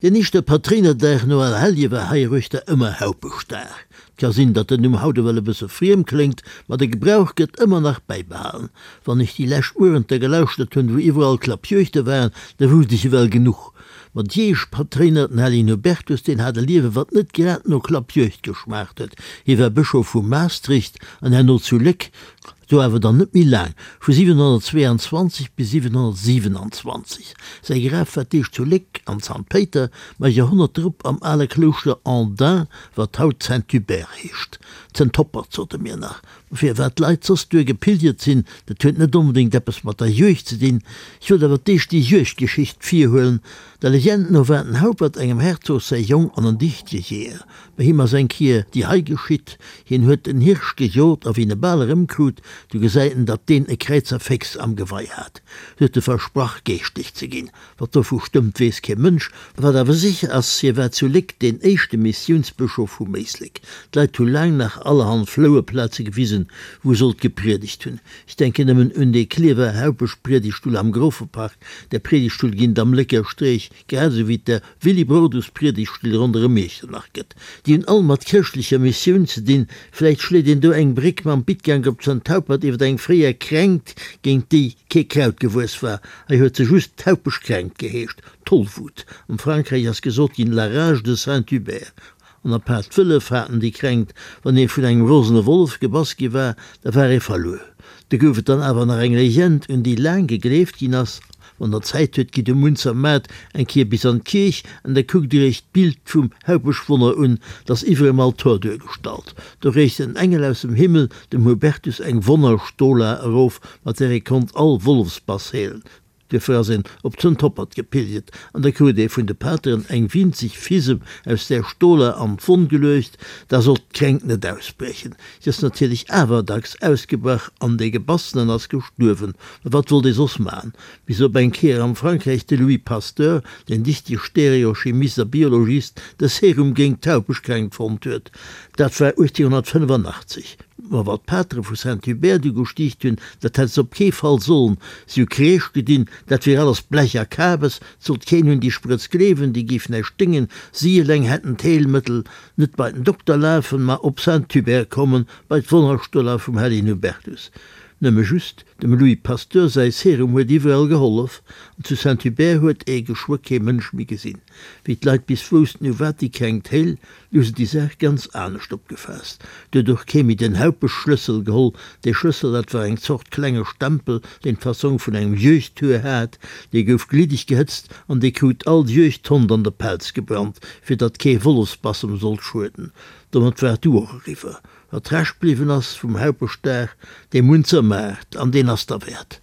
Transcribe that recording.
Deen éischte Patréinerdag no Allerhellje war heiruechter ëmmer Haupeschdag. 't ka sinn, datt den Numm haut ewell e bësse friem kléngt, ma de Gebrauch gëtt ëmmer nach bäibehalen. Wann ech déi lescht Muerenter gelauschtert hunn, wou iwwerall Klappjuegte waren, da wousst ech ewell genuch. Ma d'Jeesch Patréiner, den Hellegen Hubertus, deen hat e Liewe wat net grad no Klappjuegd geschmaacht huet. Hie war Bëschof vu Maastricht an herno zu Léck. Do awer dann net méi laang, vu 722 bis 727. Säi Graf war d'éischt zu Léck an Zant Péiter, ma e Joerhonnert drop am ale Klouschter Andun, wat haut Saint-Hubert heescht. Zëntoppert, sote mir nach. Ma firwat d'Leit soss duer gepilgert sinn, dat huet net onbedéngt eppes mat der Juegd ze dinn. Ech wollt awer d'éischt déi Juegdgeschicht virhuelen. Der Legend no war den Haupert engem Herzog säi Jong an en dichtege Jeeër. Bei him ass eng Kier déi hei geschitt, Hien huet en Hirsch gejot a wéi en e bal erëmkrut, du gesäit en, datt deen e Kräizerféchs am Gewei hat. Du huet e versprach, geeschtlech ze ginn. Wat dovu stëmmt, weess kee Mënsch. Wat awer sécher ass, hie war zu Léck deen éischte Missiounsbëschof vum Éislek. D'Leit hu laang nach allerhand Flouerplaze gewisen, wou e sollt gepriedegt hunn. Ech denken nëmmen un dee Klierfer Haupeschpriedegtstull am Grofepark, där Priedegtstull ginn et am Lécker Streech, grad esou wéi et der Willibrordus-Priedegtstill ronderëm Iechternach gëtt. Déi hunn all mat chrëschtlecher Missioun ze dinn. Vläicht schléit een do eng Bréck mam Bittgank op Zant-Haupert iwwer eng fréier Kränkt, géint déi kee Kraut gewuess war. Hei huet se just d'Haupeschkränkt geheescht, Tollwut. Am Frankräich ass gesot ginn, la rage de Saint-Hubert. An apaart d'Wëllef haten déi Kränkt. Wann ee vun engem rosene Wollef gebass gi war, da war ee verluer. Do gouf et dann awer nach eng Legend, un déi laang gegleeft ginn ass, Wann der Zäit huet, gitt um Munzer Maart eng Kéier bis an d'Kierch an da kuckt dir iech d'Bild vum Haupeschwonner un, 't ass iwwer em Altor duergestallt. Do reecht en Engel aus dem Himmel dem Hubertus eng Wonnerstola erof, mat där e konnt all Wollefsbass heelen. Duerfir ass een op Zëntoppert gepilgert an da krut ee vun de Pateren eng winzeg Fisem aus där Stola an d'Wonn geluecht, da sollt d'Kränkt net ausbriechen. Si ass natierlech awer dacks ausgebrach an dee Gebassenen ass gestuerwen. Ma wat wollt ee soss maachen? Bis op eng Kéier am Frankräich de Louis Pasteur, deen dichtege Stereochemist a Biologist, de Serum géint d'Haupeschkränkt fonnt huet. Dat war 1885. Ma wat d'Patere vu Saint-Hubert du gestiicht hunn, dat hätt se op kee Fall sollen. Si hu Kreesch gedinn, dat wier alles Blech a Kabes, 't sollt keen un déi Sprëtz gleewen, déi géif näischt déngen, si eleng hätten d'Heelmëttel. Net bei den Dokter lafen, ma op Saint-Hubert kommen, bei d'Wonnerstola vum Hellegen Hubertus. Nëmme just, dem Louis Pasteur säi Serum huet iwwerall gehollef, an zu Saint-Hubert huet ee geschwë kee Mënsch méi gesinn. Wéi d'Leit bis woussten, u wat déi Kränkt héil, Du hu se déi Saach ganz anescht opgefaasst. Du huet och kee méi den Haupeschschlëssel geholl. Dee Schlëssel, dat war eng Zort klenge Stempel, deen d'Fassong vun engem Juegdhuer hat. Dee gouf gliddeg gehëtzt an dee krut all Juegdhond an de Pelz gebrannt, fir datt kee Wollefsbass em sollt schueden. Domat war et du och eriwwer. Wat Rescht bliwwen ass vum Haupeschdag, dee Munzer Maart, an deen ass derwäert.